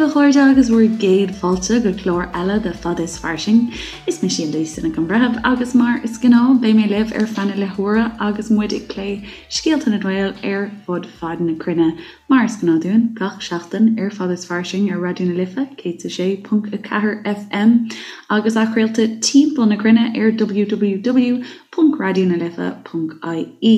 a chairde agus bhur gcéad fáilte go clár eile de Fada is Fairsing. Is mise Lisa Nic an Bhreithimh agus mar is gnáth beidh mé libh ar feadh na leathuaire agus muid ag plé scéalta na nGael ar fud fad na cruinne. Mar is gnáth dúinn gach seachtain ar Fada is Fairsing ar Raidió na Life 106.4 FM agus athchraolta timpeall na cruinne ar www.raidionalife.ie.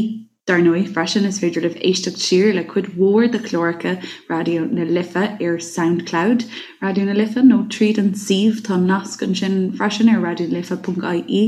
Dar ndóigh, freisin, is féidir libh éisteacht siar le cuid mhór de chláracha Raidió na Life ar Soundcloud Raidió na Life nó tríd an suíomh, tá nasc ansin freisin ar raidionalife.ie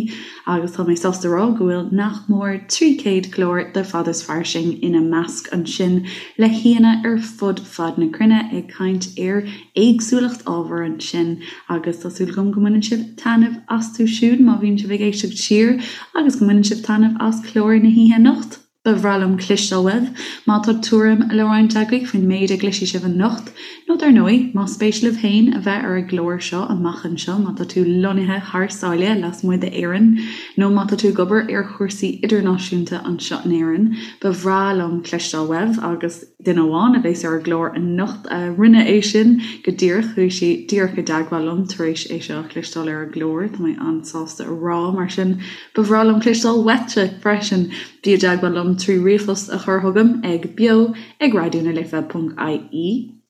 agus tá mé sásta a rá go bhfuil nach mór 300 clár de Fada is Fairsing ina measc ansin le haíonna ar fud fad na cruinne ag caint ar éagsúlacht ábhar ansin agus tá súil agam go mbaineann sibh taitneamh astu siúd má bhíonn sibh ag éisteacht siar agus go mbaineann sibh taitneamh as clár na hoíche anocht. Ba bhreá liom cloisteáil uaibh má tá tuairim le roinnt agaibh faoin méid a gcloisfidh sibh anocht, nó dar ndóigh, más spéis libh féin a bheith ar an gclár seo amach anseo má tá tú lonnaithe thar sáile lasmuigh d'Éirinn, nó má tá tú ag obair ar chúrsaí idirnáisiúnta anseo in Éirinn, ba bhreá liom cloisteáil uaibh agus duine amháin a bheas ar an gclár anocht a rinne é sin go díreach, chuaigh sí díreach i dteagmháil liom tar éis é seo a chloisteáil ar an gclár, tá mé an-sásta a rá, mar sin ba bhreá liom cloisteáil uaitse freisin! Bí i dteagmháil liom trí ríomhphost a chur chugam ag beo ag raidionalife ponc ie,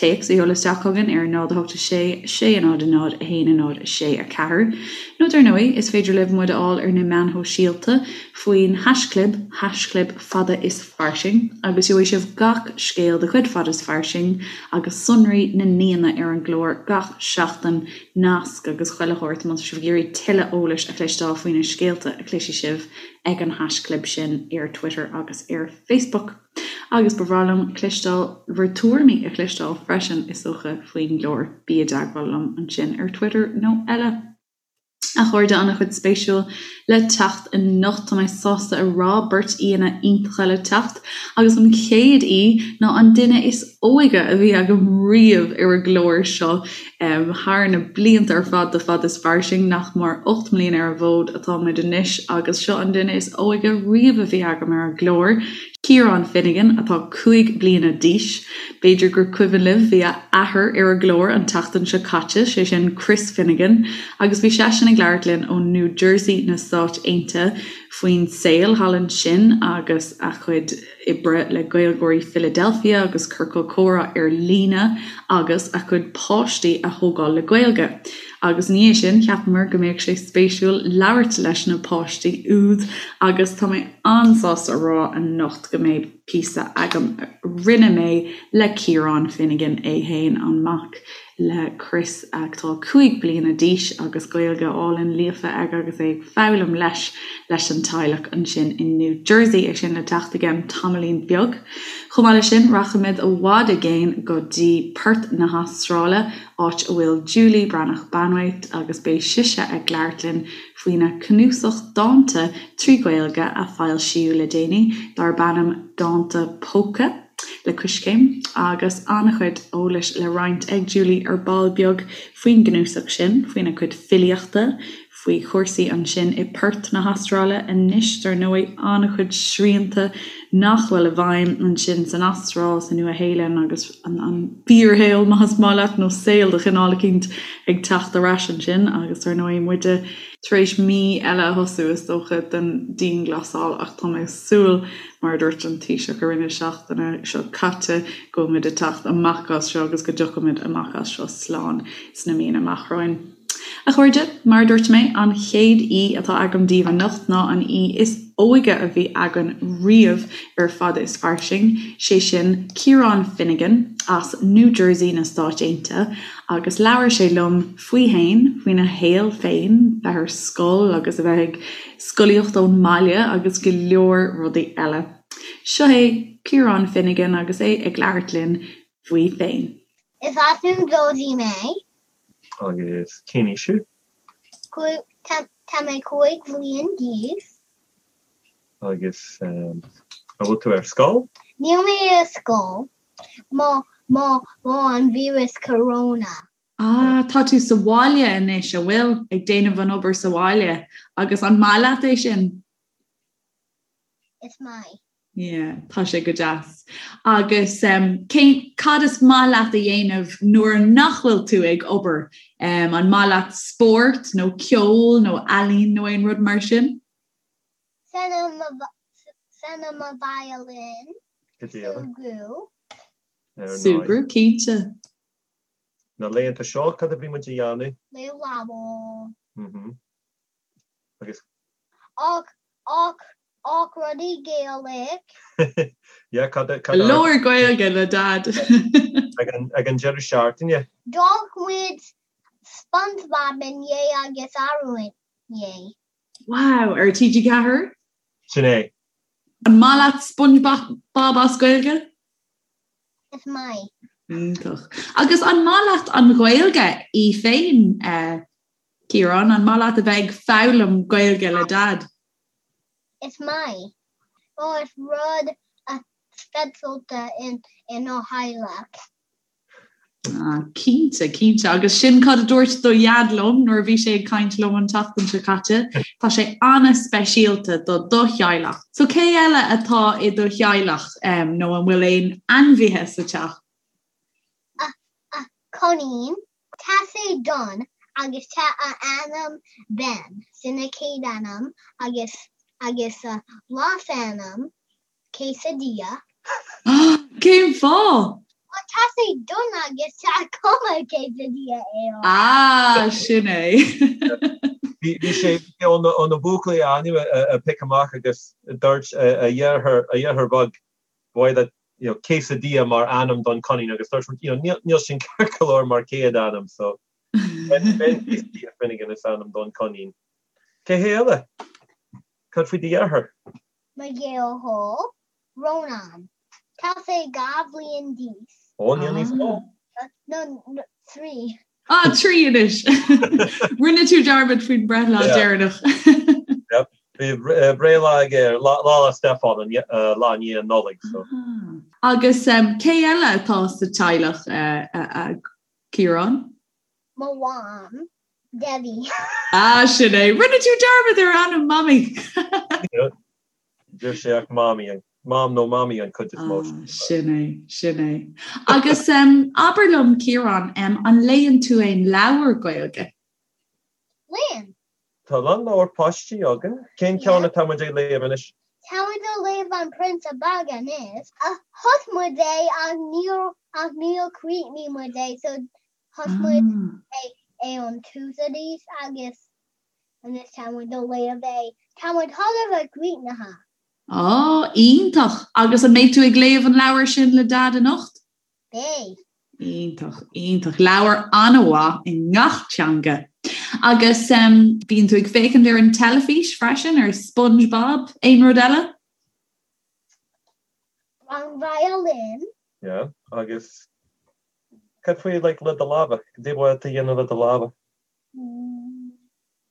téacs a sheoladh isteach chugainn ar 0 8 6 6 0 0 1 0 6 4, nó dar ndóigh, is féidir libh muid a fháil ar na meáin shóisialta faoin haischlib, haischlib fada is fairsing, agus gheobhaidh sibh gach scéal de chuid Fada is Fairsing agus sonraí na n-aíonna ar an gclár gach seachtain, nasc agus chuile shórt má tá sibh ag iarraidh tuilleadh eolais a chloisteáil faoi na scéalta a chloisfidh sibh. ag an haischlib sin ar Twitter agus ar Facebook. Agus ba bhreá liom cloisteáil bhur tuairimí a chloisteáil freisin, is dócha, faoin gclár. Bí i dteagmháil liom ansin ar Twitter nó eile. A chairde, an-chuid spéisiúil le teacht anocht, tá mé sásta a rá, beirt aíonna iontacha le teacht, agus an chéad aoi ná an duine is óige a bhí agam riamh ar an gclár seo. Thar na blianta ar fad de Fada is Fairsing, nach mór 8 mbliana ar an bhfód atáimid anois agus seo an duine is óige riamh a bhí agam ar an gclár, Ciarán Finnegan, atá 5 bliana d'aois. B'fhéidir gur cuimhin libh, bhí a athair ar an gclár an tseachtain seo caite, sé sin Chris Finnegan, agus bhí seisean ag labhairt linn ó New Jersey na Stáit Aontaithe faoin saol thall ansin agus a chuid oibre le Gaeilgeoirí Philadelphia agus Ciorcal Comhrá ar líne agus a chuid páistí a thógáil le Gaeilge. Agus ina dhiaidh sin, cheapamar go mbeadh sé spéisiúil labhairt leis na páistí úd agus tá mé an-sásta a rá anocht go mbeidh píosa agam a rinne mé le Ciarán Finnegan é fhéin, an mac le Chris atá 5 bliana d'aois agus Gaeilge álainn líofa aige agus é ag foghlaim leis leis an teaghlach ansin in New Jersey, é sin le teacht i gceann tamaillín beag. Chomh maith leis sin, rachaimid i bhfad i gcéin go dtí Perth na hAstráile, áit a bhfuil Julie Breathnach Banwait agus beidh sise ag labhairt linn faoina cnuasach dánta trí Ghaeilge a foilsíodh le déanaí darb ainm Dánta Póca. le Coiscéim, agus an-chuid eolais le roinnt ag Julie ar ball beag faoin gcnuasach sin, faoina cuid filíochta, faoi chúrsaí ansin i Perth na hAstráile anois, dar ndóigh, an-chuid srianta nach bhfuil i bhfeidhm ansin san Astráil, sa Nua-Shéalainn agus an fíorshaol, más maith leat, nó saol de chineál eicínt ag teacht ar ais ansin agus dar ndóigh muide tar éis mí eile a thosú, is dócha, den dianghlasáil ach tá mé ag súil Mar a dúirt an Taoiseach i rith na seachtaine seo caite, go bhfuilimid ag teacht amach as seo agus go dtiocfaimid amach as seo slán sna míonna amach romhainn. A chairde, mar a dúirt mé, an chéad aoi atá agam daoibh anocht ná an aoi is óige a bhí againn riamh ar Fada is Fairsing, sé sin Ciarán Finnegan as New Jersey na Stáit Aontaithe, agus labhair sé liom faoi fhéin, faoina shaol féin, bheith ar scoil agus a bheith ag scolaíocht ón mbaile agus go leor rudaí eile. Seo é Ciarán Finnegan agus é ag labhairt linn faoi féin. Is as New Jersey mé. Agus cén aois thú? Tá mé 5 bhliain d'aois. Agus an bhfuil tú ar scoil? Níl mé ar scoil mar mar mar an víreas corona. Ah, tá tú sa bhaile anois, a bhfuil? Ag déanamh an obair sa bhaile. Agus an maith leat é sin? Is maith. Yeah, tá sé go deas. Agus um, cén, cad is maith leat a dhéanamh nuair nach bhfuil tú ag obair? Um, an maith leat spórt nó ceol nó ealaín nó aon rud mar sin? Seinm mo violin. Súgradh. Súgradh, cinnte. Na laethanta seo, cad a bhí muid a dhéanamh? Léamh leabhar. Mhm. Agus. Ach, ach, ach rudaí Gaelic. Yeah, cad a, cad a. Labhair Gaeilge le Dad. Ag an, ag an deireadh seachtaine. D'amharc muid SpongeBob inné agus arú inné. Wow, ar TG4? Sin é. An maith leat SpongeBob as Gaeilge? Is maith. Iontach. Agus an maith leat an Ghaeilge í féin, Ciarán? An maith leat a bheith ag foghlaim Gaeilge le Dad? Is maith. Ó, is rud speisialta inár theaghlach. Ah, cinnte, cinnte. Agus sin cad a dúirt do Dhaid liom nuair a bhí sé ag caint liom an tseachtain seo caite. Tá sé an-speisialta do do theaghlach. So cé eile atá i do theaghlach um, nó an bhfuil aon ainmhithe sa teach? Ah, ah, coinín, tá sé donn agus tá a ainm Ben, sin a chéad ainm agus agus a leasainm Quesadilla. Cén fáth? Well tá sé donn agus tá cuma quesadilla air. Ah, sin é. Bhí sé ó na buachaillí a ainm a piocadh amach agus dúirt a dheartháir a dheartháir beag ba mhaith leat you know quesadilla mar ainm don coinín agus dúirt muid you know níl sin ceart go leor mar chéad ainm so Ben Ben Quesadilla Finnegan is ainm don coinín. Cé hé eile? Cad faoi do dheartháir? Mo dheartháir, Rónán. Tá sé 2 bhliain d'aois. Ó, níl níos mó. No, 3. Ah, 3 anois! Rinne tú dearmad faoin breithlá deireanach. Yep. Bhí breithlá aige Lá 'le Stiofáin, an lá i ndiaidh an Nollaig, so. Agus cé eile atá sa teaghlach, a Chiaráin? Mo mham, Debbie. Ah, sin é. Rinne tú dearmad ar ainm Mamaí! Deir sé ach Mamaí, Mam nó Mamaí an chuid is mó. Ah, sin é, sin é. Agus abair liom, Ciarán, an léann tú aon leabhar Gaeilge? Léann. Tá a lán leabhar páistí againn. Cén ceann atá muid ag léamh anois? Tá muid ag léamh An Prionsa Beag anois. Thosaigh muid é ach níor ach níor chríochnaigh muid é so Thosaigh muid é ón tús arís agus anois tá muid ag léamh é. Tá muid chóir a bheith críochnaithe. Á, iontach! Agus an mbeidh tú ag léamh an leabhair sin le Dad anocht? Beidh. Iontach, iontach. Leabhar an-mhaith i ngach teanga. Agus bíonn tú ag féachaint ar an teilifís freisin, ar SpongeBob, aon rud eile? Rang violin. Yeah, agus Cad faoi like le do lámha? Cad é ba mhaith leat a dhéanamh le do lámha?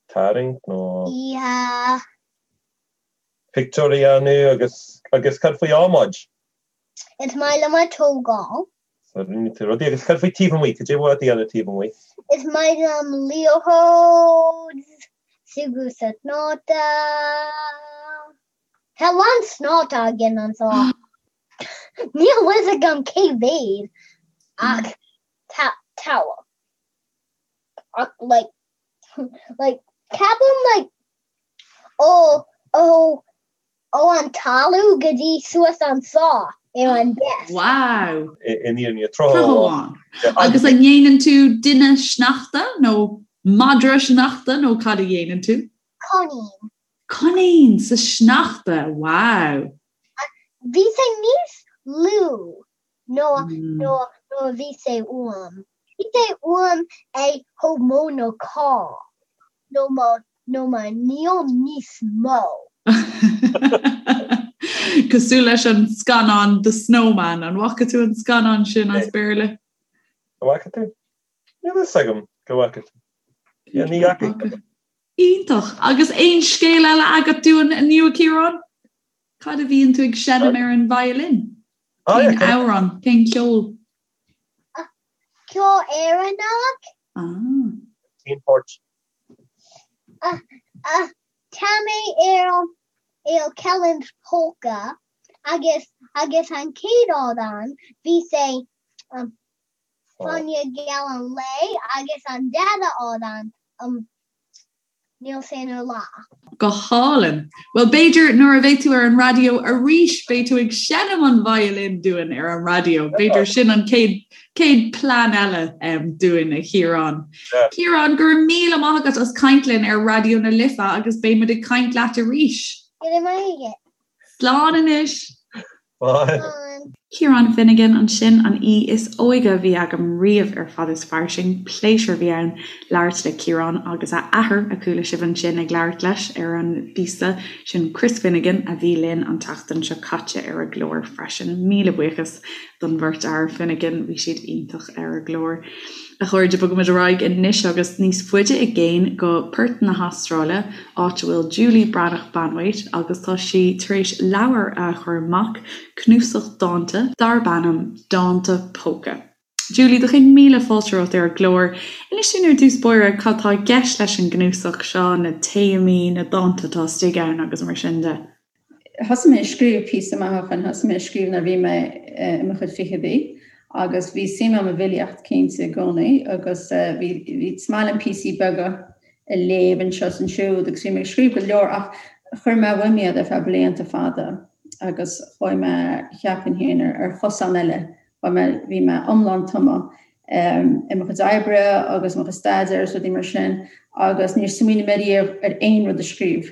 Tarraingt nó. Yeah. Pictiúr a dhéanamh agus agus cad faoi adhmaid? Is maith liom ag tógáil. So rinne tú rudaí agus cad faoi taobh amuigh? Cad é ba mhaith leat a dhéanamh taobh amuigh? Is maith liom liathróid, súgradh sa sneachta. Tá a lán sneachta againn anseo. Níl fhios agam cé mhéad ach tá tá ach like like ceapaim like ó ó ó an talamh go dtí suas anseo ar an desk. Wow! In fhírinne, tráth amháin. Agus an ndéanann tú duine sneachta nó madra sneachta nó cad a dhéanann tú? Coinín. Coinín sa sneachta, wow! Bhí sé níos lú ná ná a bhí sé uaim. Bhí sé uaim é chomh mó nó carr nó mo nó mo níl níos mó. Cosúil leis an scannán The Snowman, an bhfaca tú an scannán sin as Béarla? An bhfaca tú? Níl fhios agam go bhfaca tú. Ní fhaca. Iontach! Agus aon scéal eile agat dúinn inniu, a Chiaráin? Cad a bhíonn tú ag seinm ar an violin? Cén amhrán? Cén ceol? Ceol Éireannach. Ah. Cén port? Tá mé ar ar Kelly's Polka. Agus agus an chéad amhrán bhí sé um, Fáinne Geal an Lae agus an dara amhrán um, Níl sé ina lá. Go hálainn. Bhuel, b'fhéidir nuair a bheidh tú ar an raidió arís, beidh tú ag seinm an violin dúinn ar an raidió. B'fhéidir sin an chéad chéad plean eile um, dúinn, a Chiaráin. Ciarán, go raibh míle maith agat as caint linn ar Raidió na Life agus beidh muid ag caint leat arís. Go raibh maith agat. Slán anois! Bye. Ciarán Finnegan ansin, an aoi is óige a bhí agam riamh ar Fad is Fairsing. Pléisiúr a bhí ann labhairt le Ciarán agus a athair, a chuala sibh ansin ag labhairt leis ar an bpíosa, sin Chris Finnegan a bhí linn an tseachtain seo caite ar an gclár freisin. Míle buíochas don bheirt fhear Finnegan, bhí siad iontach ar an gclár. A chairde, bogaimid ar aghaidh anois agus níos faide i gcéin go Perth na hAstráile, áit a bhfuil Julie Breathnach Banwait agus tá sí tar éis leabhar a chur amach, cnuasach dánta darb ainm Dánta Póca. Julie, do chéad míle fáilte romhat ar an gclár. Inis dúinn ar dtús báire cad tá i gceist leis an gcnuasach seo, na téamaí, na dánta atá istigh ann agus mar sin de. Thosaigh mé ag scríobh píosa maith ó shin, thosaigh mé ag scríobh nuair a bhí mé i mo chuid fichidí agus bhí suim agam i bhfilíocht cinnte i gcónaí agus bhí is maith liom píosaí beaga a léamh anseo is ansiúd agus bhí mé ag scríobh go leor ach chuir mé uaim iad ar feadh blianta fada agus chuaigh mé cheapfainn féin ar chosán eile, chuaigh mé, bhí mé iomlán tumtha i mo chuid oibre agus mo chuid staidéir agus rudaí mar sin agus níor smaoinigh mé riamh ar aon rud a scríobh.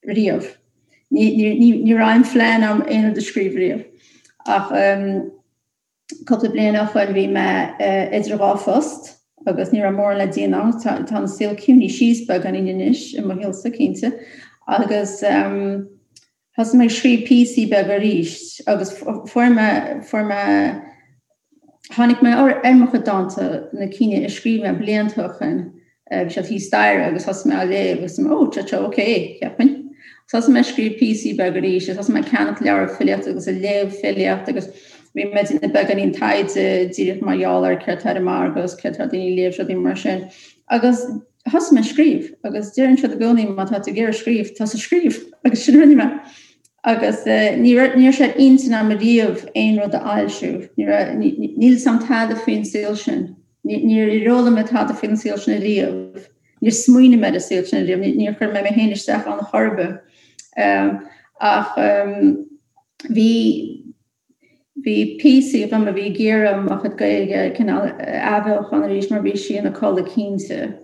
riamh. Ní raibh aon phlean agam aon rud a scríobh riamh. Ach cúpla bliain ó shoin bhí mé idir dhá phost agus ní raibh mórán le déanamh agam. Tá an saol ciúnaithe síos beagáinín anois i mo shaolsa, cinnte. Agus thosaigh mé ag scríobh píosaí beaga arís agus fuair mé, fuair mé, tháinig mé ar mo chuid dánta, na cinn a scríobh mé blianta ó shoin. Bhí siad thíos staighre agus thosaigh mé á léamh agus mé, oh, tá ok, cheapfainn. Thosaigh mé ag scríobh píosaí beaga arís agus thosaigh mé ag ceannach leabhar filíochta agus ag léamh filíocht agus bhí mé ag déanamh beagáinín taighde díreach mar gheall ar céard atá ar an margadh agus céard atá daoine ag léamh rudaí mar sin. Agus thosaigh mé ag scríobh agus deireann siad i gcónaí má tá tú ag iarraidh scríobh, tosaigh ag scríobh agus sin a rinne mé. Agus ní raibh sé ar intinn agam riamh aon rud a fhoilsiú. Níl a fhios agam tada faoin saol sin. Níor fhoghlaim mé tada faoin saol sin ariamh. Níor smaoinigh mé ar an saol sin ariamh. Níor chuir mé mé féin isteach ann chor ar bith. Ach bhí bhí píosaí agam a bhí ag iarraidh mo chuid Gaeilge cineál a athbheochan arís mar bhí sí ina codladh cinnte.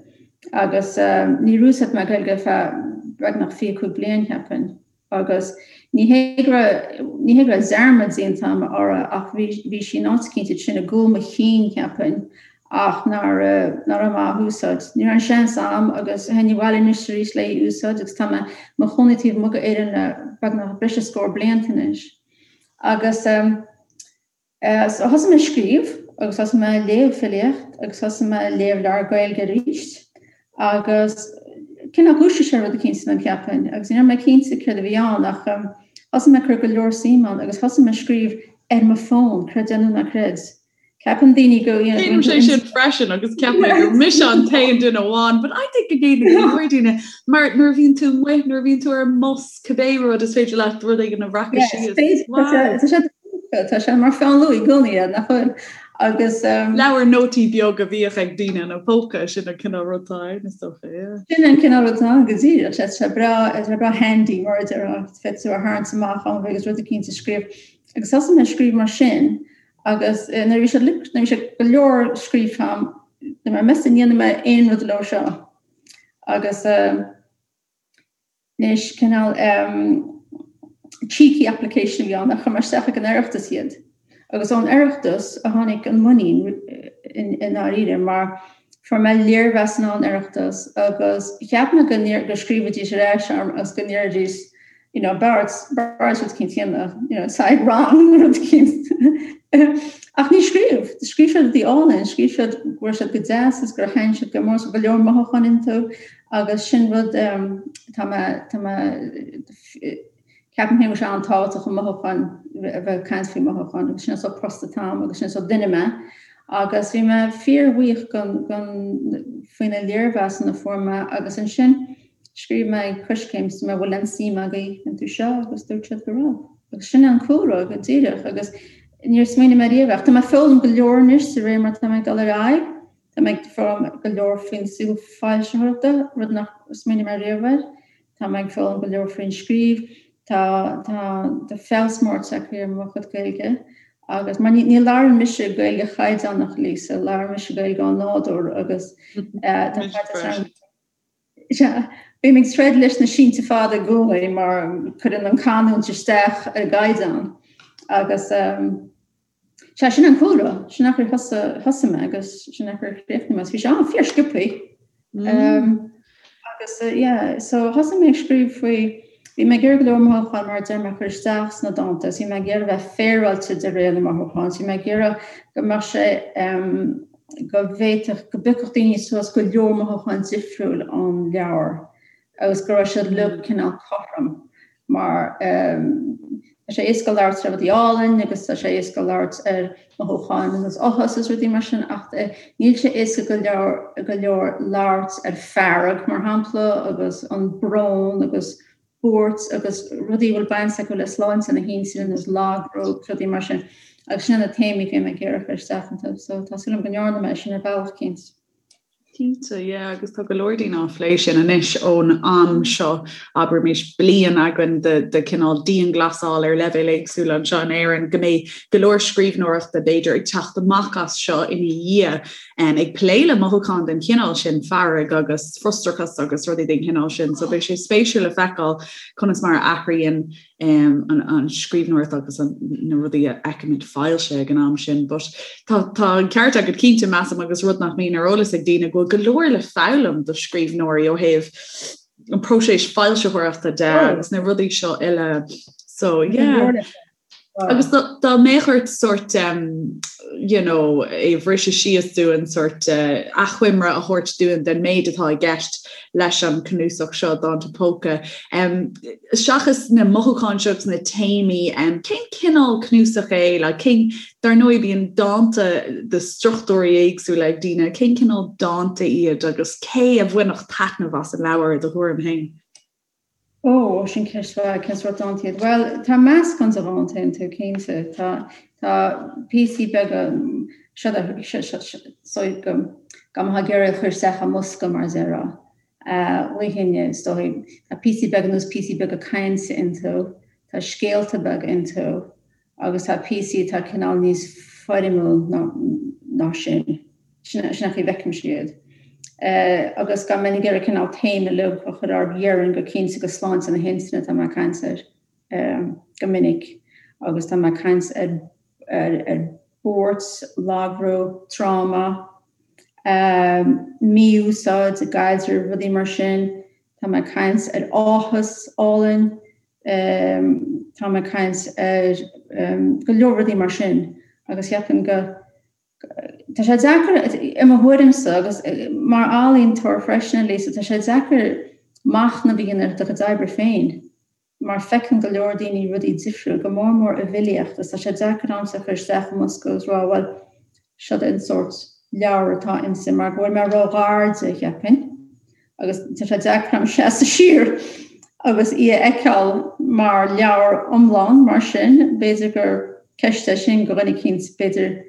Agus níor úsáid mé Gaeilge ar feadh beagnach 25 bliain, cheapfainn. Agus ní hé go raibh, ní hé go raibh dearmad déanta agam uirthi ach bhí, bhí sí in áit eicínt ansin i gcúl mo chinn, cheapfainn, ach nár, nach raibh mé á húsáid. Ní raibh an seans agam agus théinn abhaile anois arís le í a úsáid agus tá mé i mo chónaí taobh amuigh d'Éirinn le beagnach breis is scór blianta anois. Agus. So thosaigh mé ag scríobh agus thosaigh mé ag léamh filíocht agus thosaigh mé ag léamh leabhar Gaeilge arís agus cineál dhúisigh sé rud eicínt ionam cheapfainn agus ní raibh mé cinnte céard a bhí ann ach thosaigh mé ag cur go leor suim ann agus thosaigh mé ag scríobh ar mo fón, creid é nó ná creid. Ceapann daoine go Déanaim sé sin freisin agus ceapaim gur mise an t-aon duine amháin, but I think go ndéanann go leor daoine mar nuair a bhíonn tú amuigh, nuair a bhíonn tú ar an mbus, cibé rud is féidir leat rud éigin a bhreacadh síos. Tá sé Tá sé mar pheann luaidhe i gcónaí é, nach bhfuil? Agus. Leabhar nótaí beag a bhíodh ag daoine ina bpóca, sin an cineál rud atá ann, is dócha, yeah. Sin an cineál rud atá ann go díreach. Tá sé breá, tá sé breá handy mar a déarfá, féadfaidh tú a tharraingt amach am agus rud eicínt a scríobh. Agus thosaigh mé ag scríobh mar sin agus nuair a bhí sé, nuair a bhí sé go leor scríofa agam, dúirt mé, meas tú an ndéanfaidh mé aon rud leo seo? Agus. Anois, cineál cheeky application a bhí ann, ach chuir mé isteach ag an Oireachtas iad. Agus ón Oireachtas a tháinig an muinín i ndáiríre, mar fuair mé léirmheasanna ón Oireachtas agus cheap mé go go scríobhfaidís ar ais orm agus go ndéarfaidís, you know, b'fhearr rud eicínt a dhéanamh, you know, side wrong rud eicínt. Ach níor scríobh. Scríobh siad rudaí álainn, scríobh siad go raibh siad go deas is gur thaitin siad go mór, go leor mothúcháin iontu. Agus sin rud tá mé, tá mé, ceapaim féin go bhfuil sé an-tábhachtach an mothúcháin, a bheith ag caint faoi mhothúcháin agus sin an sórt post atá agam agus sin an sórt duine mé. Agus bhí mé fíorbhuíoch gon, gon, faoi na léirmheasanna a fuair mé agus ansin scríobh mé ag Coiscéim is dúirt mé bhfuil aon suim agaibh iontu seo agus dúirt siad go raibh. Agus sin an cúlra go díreach agus níor smaoinigh mé riamh ach tá mé ag foghlaim go leor anois de réir mar tá mé ag dul ar aghaidh. Tá mé ag foghlaim go leor faoin saol foilsitheoireachta, rud nach smaoinigh mé riamh air. Tá mé ag foghlaim go leor faoin scríobh. Tá tá tá feabhas mór tagtha ar mo chuid Gaeilge agus mar ní ní labhrann mise Gaeilge chaighdeánach Lisa, labhrann mise Gaeilge ó nádúr agus tá Sea, bím ag troid leis na sínte fada i gcónaí mar cuireann an canúint isteach ar an gcaighdeán agus sea, sin an cúlra, sin an chaoi ar thosaigh mé agus sin an chaoi ar chríochnaigh mé. Bhí sé an-fhíor sciobthaí. Agus yeah, so thosaigh mé ag scríobh faoi, bhí mé ag iarraidh go leor mothúchán mar a deir mé a chur isteach sna dánta agus bhí mé ag iarraidh bheith féaráilte de réir na mothúchán, bhí mé ag iarraidh go mbeadh sé go bhféadfadh, go bpiocfadh daoine suas go leor mothúchán difriúil ón leabhar agus go raibh siad uilig cineál cothrom mar tá sé éasca labhairt ar rudaí álainn agus tá sé éasca labhairt ar mothúcháin agus áthas agus rudaí mar sin ach níl sé éasca go leor go leor labhairt ar fearg mar shampla agus an brón agus buairt agus rudaí a bhfuil baint acu le sláinte na hintinne agus lagbhrú agus rudaí mar sin agus sin na téamaí a bhí mé ag iarraidh a chur isteach iontu so tá súil agam go ndearna mé sin ar bhealach eicínt. Cinnte, yeah, agus tá go leor daoine á phlé sin anois ón am seo, abraimis bliain againn de, de cineál dianghlasáil ar leibhéil éagsúla anseo in Éirinn, go mbeidh go leor scríbhneoireachta b'fhéidir ag teacht amach as seo ina dhiaidh ag plé le mothúcháin den chineál sin, fearg agus frustrachas agus rudaí den chineál sin. So beidh sé spéisiúil le feiceáil conas mar a athraíonn an scríbhneoireacht agus na rudaí a fheicimid foilsithe ag an am sin. But tá tá an ceart agat cinnte measaim agus rud nach mbíonn ar eolas ag daoine go bhfuil go leor le foghlaim do scríbhneoirí ó thaobh an próiseas foilsitheoireachta de agus na rudaí seo uile. So yeah. Agus dá mbeadh ort sórt you know, é a bhriseadh síos dúinn sórt achoimre a thabhairt dúinn den méid atá i gceist leis an cnuasach seo Dánta Póca. Seachas na mothúcháin seo agus na téamaí, cén cineál cnuasach é? Like, cén, dar ndóigh bíonn dánta de struchtúirí éagsúla ag daoine, cén cineál dánta iad agus cé a bhainfeadh taitneamh as an leabhar i do thuairim féin? Ó, sin ceist mhaith, cén sórt dánta iad? Bhuel, tá meascán de dhánta iontu, cinnte. Tá, tá píosaí beaga, seo, so go, go mbeifeá ag iarraidh a chur isteach i mbosca, mar a déarfá. Mholfainn, is dóigh, tá píosaí beaga nós píosaí beaga cainte iontu, tá scéalta beaga iontu. agus tá píosaí atá cineál níos foirmiúil ná sin. Sin an chaoi a bhfeicimse iad. Agus dá mbeinn ag iarraidh cineál téama uilig a chur orthu, déarfainn go cinnte go sláinte na hintinne atá mé ag caint air go minic agus tá mé ag caint ar ar buairt, lagbhrú, tráma, mí-úsáid i gcaidrimh, rudaí mar sin. Tá mé ag caint ar áthas álainn, Tá mé ag caint ar go leor rudaí mar sin agus cheapfainn go tá sé deacair i mo thuairimse agus mar ealaíontóir freisin Lisa, tá sé deacair machnamh a dhéanamh ar do chuid oibre féin mar feiceann go leor daoine rudaí difriúil, go mór mór i bhfilíocht agus tá sé deacair a'msa a chur isteach i mbosca agus rá bhuel seo an sórt leabhar atá inti mar go bhfuil mé ró-ghar di, cheapfainn. agus tá sé deacair a'm seasamh siar agus í a fheiceáil mar leabhar iomlán mar sin, b'fhéidir gur ceist é sin do dhuine eicínt, b'fhéidir,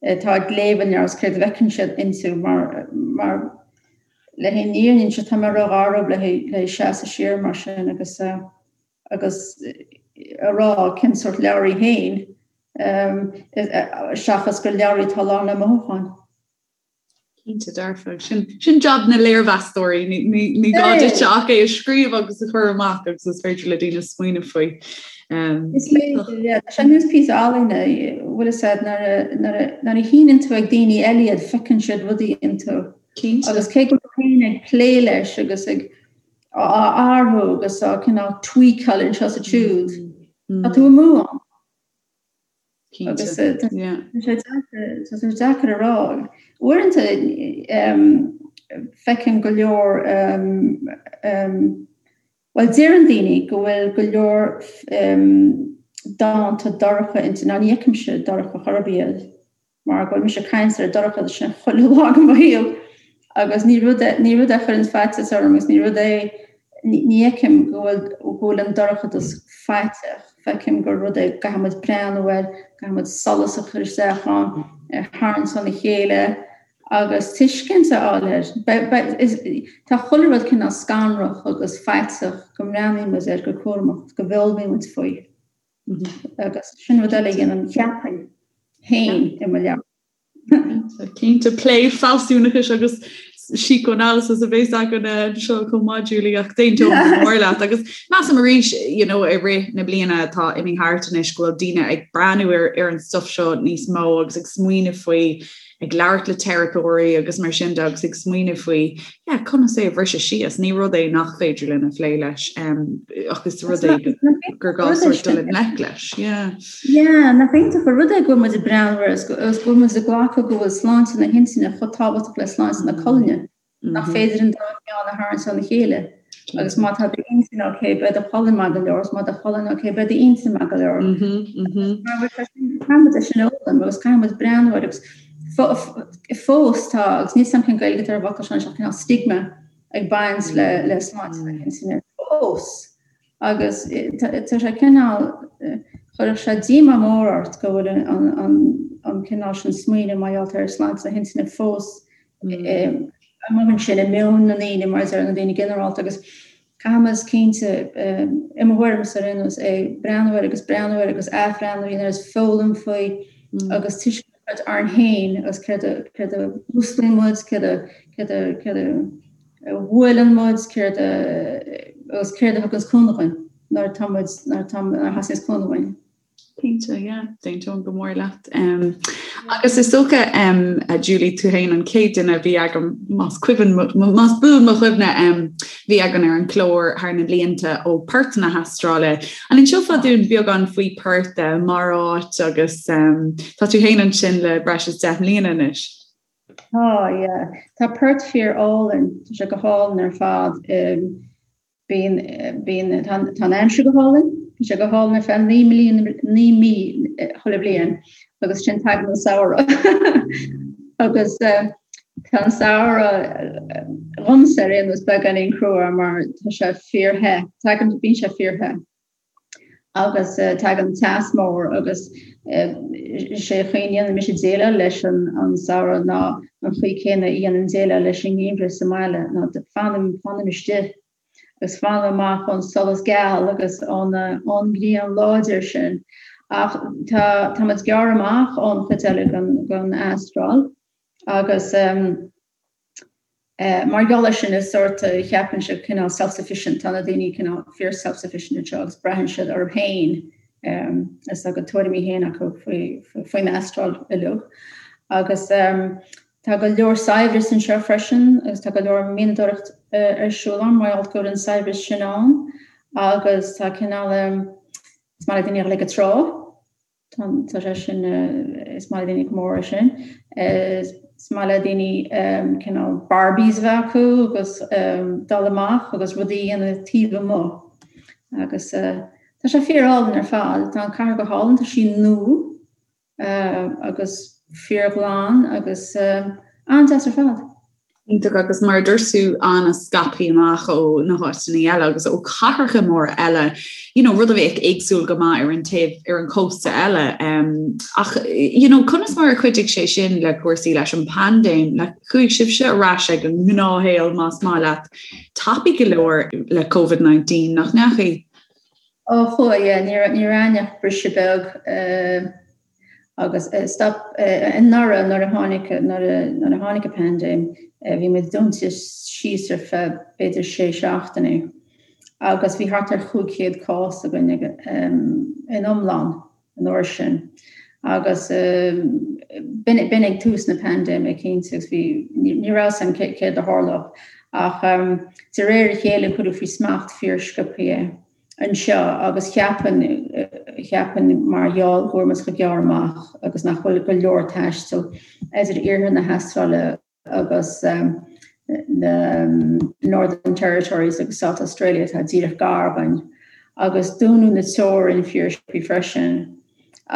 atá ag léamh an leabhair is céard a bhfeiceann siad inti mar, mar le haghaidh an fhírinne seo, tá mé ró-ghar dóibh le haghaidh seasamh siar mar sin agus, agus a rá cén sórt leabhar í féin, seachas gur leabhar í atá lán le mothúcháin. Cinnte dearfa. Sin, sin jab na léirmheastóirí, ní, ní, ní gá duit ach é a scríobh agus a chur amach agus is féidir le daoine smaoineamh faoi. Um, is féidir, yeah. Tá sé nós píosa ealaíne, bhfuil fhios a'd nuair a, nuair a, nuair a shíneann tú ag daoine eile iad, feiceann siad rudaí iontu. Cinnte. Agus cé go bhfuil tú féin ag plé leis agus ag á athrú agus á cineál tweakáil anseo is ansiúd, mm. tá tú amú ann. Agus tá sé deacair a rá. Uaireanta feicim go leor, bhuel deireann daoine go bhfuil go leor dánta dorcha inti. Now ní fheicimse dorcha chor ar bith iad mar go bhfuil mise ag caint ar an dorchadas sin chuile lá de mo shaol agus ní rud é ní rud é a chuireann faitíos orm agus ní rud é ní fheicim go bhfuil go bhfuil an dorchadas faiteach. Feicim gur rud é go gcaithfidh muid breathnú air, caithfidh muid solas a chur isteach ann, é a tharraingt óna chéile agus tuiscint a fháil air. Tá chuile rud cineál scanrach agus faiteach go mbreathnaíonn muid air go cúramach, go bhfoghlaimíonn muid faoi. Agus sin rud eile a dhéanaim, cheapfainn, féin i mo leabhar. Cinnte, plé fealsúnachais agus psychoanalysis a bheas againn anseo chomh maith, Julie, ach d'aontóinn go mór leat. Agus measaim arís, you know, i rith na bliana atá imithe thart anois go bhfuil daoine ag breathnú ar, ar an stuff seo níos mó agus ag smaoineamh faoi, ag labhairt le teiripeoirí agus mar sin de agus ag smaoineamh faoi, yeah, conas é a bhriseadh síos. Ní rud é nach féidir linn a phlé leis, um, ach is rud é gur gá sort dul i ngleic leis. Yeah. Yeah, nach iontach an rud é go bhfuil muid ag breathnú air agus go bhfuil muid ag glacadh go bhfuil sláinte na hintinne chomh tábhachtach le sláinte na colainne, nach féidir an dá cheann a tharraingt óna chéile. Agus má tá d'intinn ok, beidh do cholainn maith go leor, agus má tá do cholainn ok, beidh d'intinn maith go leor. Caithfidh muid é sin a fhoghlaim agus caithfidh muid breathnú air agus fós tá, agus níl 's a'm cén Gaeilge atá ar an bhfocal seo, cineál stigma ag baint le sláinte na hintinne fós. Agus tá sé cineál, chuirfeadh sé díomá mór ort go bhfuil an cineál sin smaoineamh mar gheall ar sláinte na hintinne fós amuigh ansin i meon na ndaoine, mar a deir na daoine ginearálta. Agus caithfidh muid cinnte, i mo thuairimse ar aon nós, é breathnú air agus breathnú air agus athbhreathnú air agus foghlaim faoi agus tuiscint a chur orainn féin agus céard a céard a mhúsclaíonn muid, céard a céard a céard a a bhuaileann muid, céard a agus céard a thuganns cúnamh dhuinn nuair atá muid nuair atá nuair a theastaíonns cúnamh uainn. Cinnte, yeah, d'aontóinn go mór leat. Um, agus is dócha um, a Julie tú féin an chéad duine a bhí agam más cuimhin más buan mo chuimhne um, bhí againn ar an chlár thar na blianta ó Perth na hAstráile. An inseofá dúinn beagán faoi Perth uh, mar áit agus um, tá tú féin ansin le breis is 10 mbliana anois. Tá, yeah. Tá Perth fíor álainn, tá sé go hálainn ar fad. Bíonn, bíonn, tá, tá an aimsir go hálainn, bíonn sé go hálainn ar feadh 9 mbliana, 9 mí chuile bhliain agus ansin tagann an samhradh. Agus tá an samhradh dhomsa ar aon nós beagáinín crua mar tá sé fíor-the, tagann, bíonn sé fíor-the. agus tagann teas mór agus is é an chaoi a ndéanann mise déileáil leis an samhradh ná an chaoi céanna a dhéanaim déileáil leis an ngeimhreadh sa mbaile ná fanaim fanaim istigh agus fanaim amach ón solas geal agus ón ón ngrian láidir sin. Ach tá tá muid gearr amach ón chuid eile den den Astráil agus Mar gheall air sin is sórt, cheapfainnse, cineál self-sufficient, tá na daoine cineál fíor self-sufficient anseo agus braitheann siad orthu féin is tá a gcuid tuairimí féin acu faoin Astráil uilig. Agus tá go leor saibhreas anseo freisin agus tá go leor mianadóireacht ar siúl ann mar gheall go bhfuil an saibhreas sin ann agus tá cineál, is maith le daoine a dhul ag an trá. Tá sé sin, is maith le daoine go mór é sin. Is maith le daoine cineál barbies a bheith acu agus dul amach agus rudaí a dhéanamh taobh amuigh. Agus tá sé fíor álainn ar fad. Tá an cathair go hálainn, tá sí nua agus fíorghlan agus an-deas ar fad. Iontach agus mar a dúirt tú an-scaipthe amach ó na háiteanna eile agus ó chathracha móra eile, you know, rud a bheadh éagsúil go maith ar an taobh ar an chósta eile. Um, ach you know, conas mar a chuidigh sé sin le cúrsaí leis an bpaindéim, le chuaigh sibhse ar ais ag an ngnáthshaol más maith leat tapaidh go leor le COVID-19 nach ndeachaigh? Ó chuaigh, yeah, ní raibh againn ach briseadh beag. Uh, Agus stop anuraidh nuair a tháinig nuair a nuair a tháinig an paindéim bhí muid dúnta síos ar feadh b'fhéidir sé seachtainí agus bhí thart ar 500 cás againn in iomlán an uair sin agus b'in b'in ag tús na paindéime cinnte agus bhí ní raibh a fhios againn céard a tharlódh ach de réir a chéile cuireadh faoi smacht fíor sciobtha é. anseo agus cheapfainn, cheapfainn mar gheall go bhfuil muid chomh gearr amach agus nach bhfuil go leor taistil idir iarthar na hAstráile agus na Northern Territories agus South Australia atá díreach gar dhúinn agus dúnadh na teorann fíorsciobtha freisin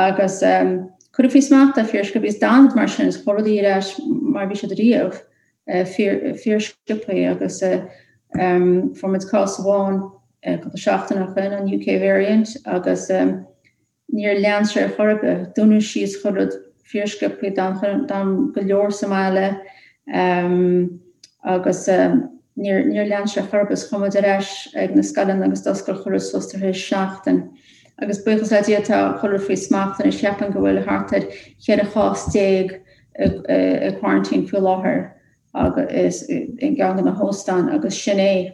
agus cuireadh faoi smacht é fíorsciobtha agus d'fhan mar sin is chuaigh rudaí ar ais mar bhí siad riamh fíorsciobtha agus fuair muid cás amháin. cúpla seachtain ó shin, an UK variant, agus níor lean sé ar chor ar bith. Dúnadh síos chuile rud fíorsciobtha, d'fhan go leor sa mbaile agus níor níor lean sé ar chor ar bith. Chuaigh muid ar ais ag na scoileanna agus d'oscail chuile rud suas tar éis seachtain. Agus buíochas le Dia tá chuile rud faoi smacht anois. Cheapfainn go bhfuil thart ar 14 chás i quarantine faoi láthair agus i gceann de na hóstáin agus sin é.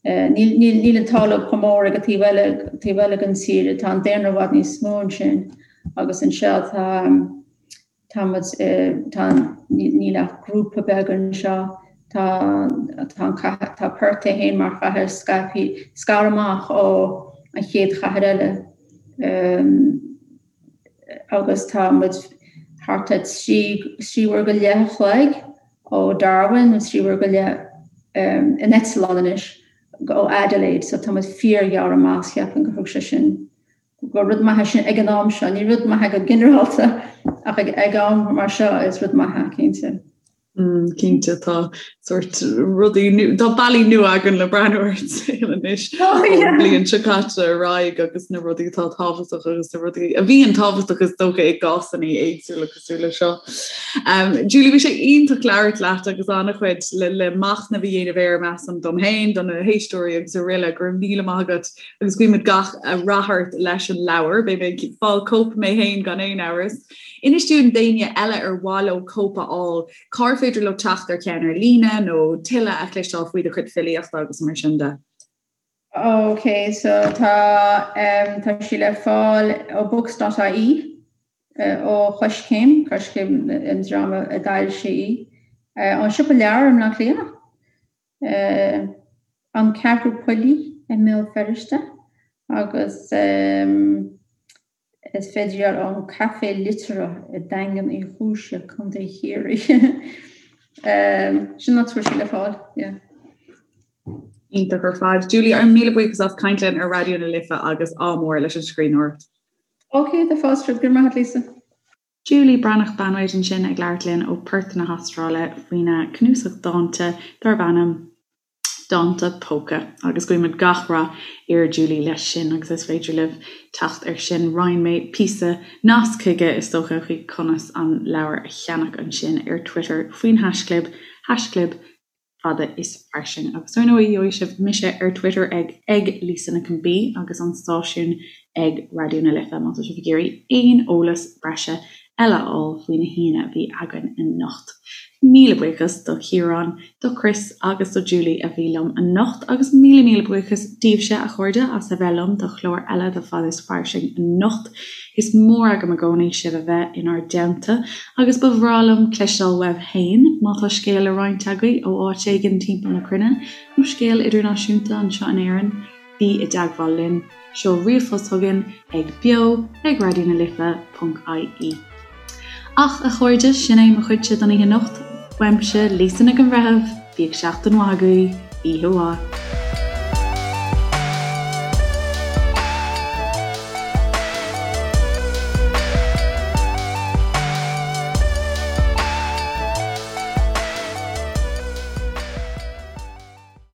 Níl níl an t-ádh leo chomh mór ag an taobh eile, taobh eile den tír, tá an daonra i bhfad níos mó ansin agus anseo tá, tá muid, tá, níl ach grúpa beag anseo, tá, tá an cathair, tá Perth é féin mar chathair scaipthe, scartha amach ó an chéad chathair eile agus tá muid thart ar 3, 3 uair go leith a chloig ó Darwin, nó 3 uair go leith in eitleán anois ó Adelaide, so tá muid fíorghearr amach, cheapfainn gur thug sé sin, gur rud maith é sin ag an am seo, ní rud maith é go ginearálta ach ag am mar seo is rud maith é, cinnte. Mm, cinnte tá sort rudaí tá bealaí nua againn le breathnú ar an saol anois oh, ón bhliain seo caite ar aghaidh agus na rudaí atá tábhachtach agus na rudaí a bhíonn tábhachtach is dócha i gcásanna éagsúla cosúil le seo. Um, Julie bhí sé iontach labhairt leat agus an-chuid le, le machnamh a dhéanamh air measaim dom féin, do na héisteoirí agus araile go raibh míle maith agat agus guímid gach rath ort leis an leabhar, beidh mé ag fáil cóip mé féin gan aon amhras. Inis dúinn d'éinne eile ar mhaith leo cóip a fháil, cár féidir leo teacht ar cheann ar líne nó tuilleadh a chloisteáil faoi do chuid filíochta agus mar sin de. Ok, so tá, tá sí le fáil ó books.ie. ó Choiscéim, Coiscéim an dream a d'fhoilsigh í, ón Siopa Leabhar i mBleá Cliath, An Ceathrú Poillí i mBéal Feirste agus is féidir í a fháil ón Café Liteartha i Daingean Uí Chúise, Contae Chiarraí. Sin an áit a bhfuil sí le fáil, yeah. Iontach ar fad. Julie, ár míle buíochas as caint linn ar Raidió na Life agus ádh mór leis an scríbhneoireacht. Ok, tá fáilte romhat. Go raibh maith agat, Lisa. Julie Breathnach Banwait ansin ag labhairt linn ó Perth na hAstráile faoina cnuasach dánta darb ainm Dánta Póca agus guímid gach rath ar Julie leis sin agus is féidir libh teacht air sin. Roinn mé píosa nasc chuige is dócha chuig conas an leabhar a cheannach ansin ar Twitter faoin haischlib, haischlib fada is fairsing. Agus ar ndóigh, gheobhaidh sibh mise ar Twitter ag ag Lisa Nic an B agus an stáisiún ag Raidió na Life má tá sibh ag iarraidh aon eolas breise eile a fháil faoi na haíonna a bhí againn anocht. Míle buíochas do Chiarán, do Chris agus do Julie a bhí liom anocht agus míle míle buíochas daoibhse, a chairde, as a bheith liom do chlár eile de Fada is Fairsing anocht. Is mór agam i gcónaí sibh a bheith inár dteannta agus ba bhreá liom cloisteáil uaibh féin má tá scéal le roinnt agaibh ó áit éigin timpeall na cruinne nó scéal idirnáisiúnta anseo in Éirinn, bí i dteagmháil linn. Seol ríomhphost chugainn ag beo ag raidió na life ponc ie. Ach, a chairde, sin é mo chuidse don oíche anocht. Uaimse, Lisa Nic an Bhreithimh, bíodh seachtain mhaith agaibh, oíche mhaith.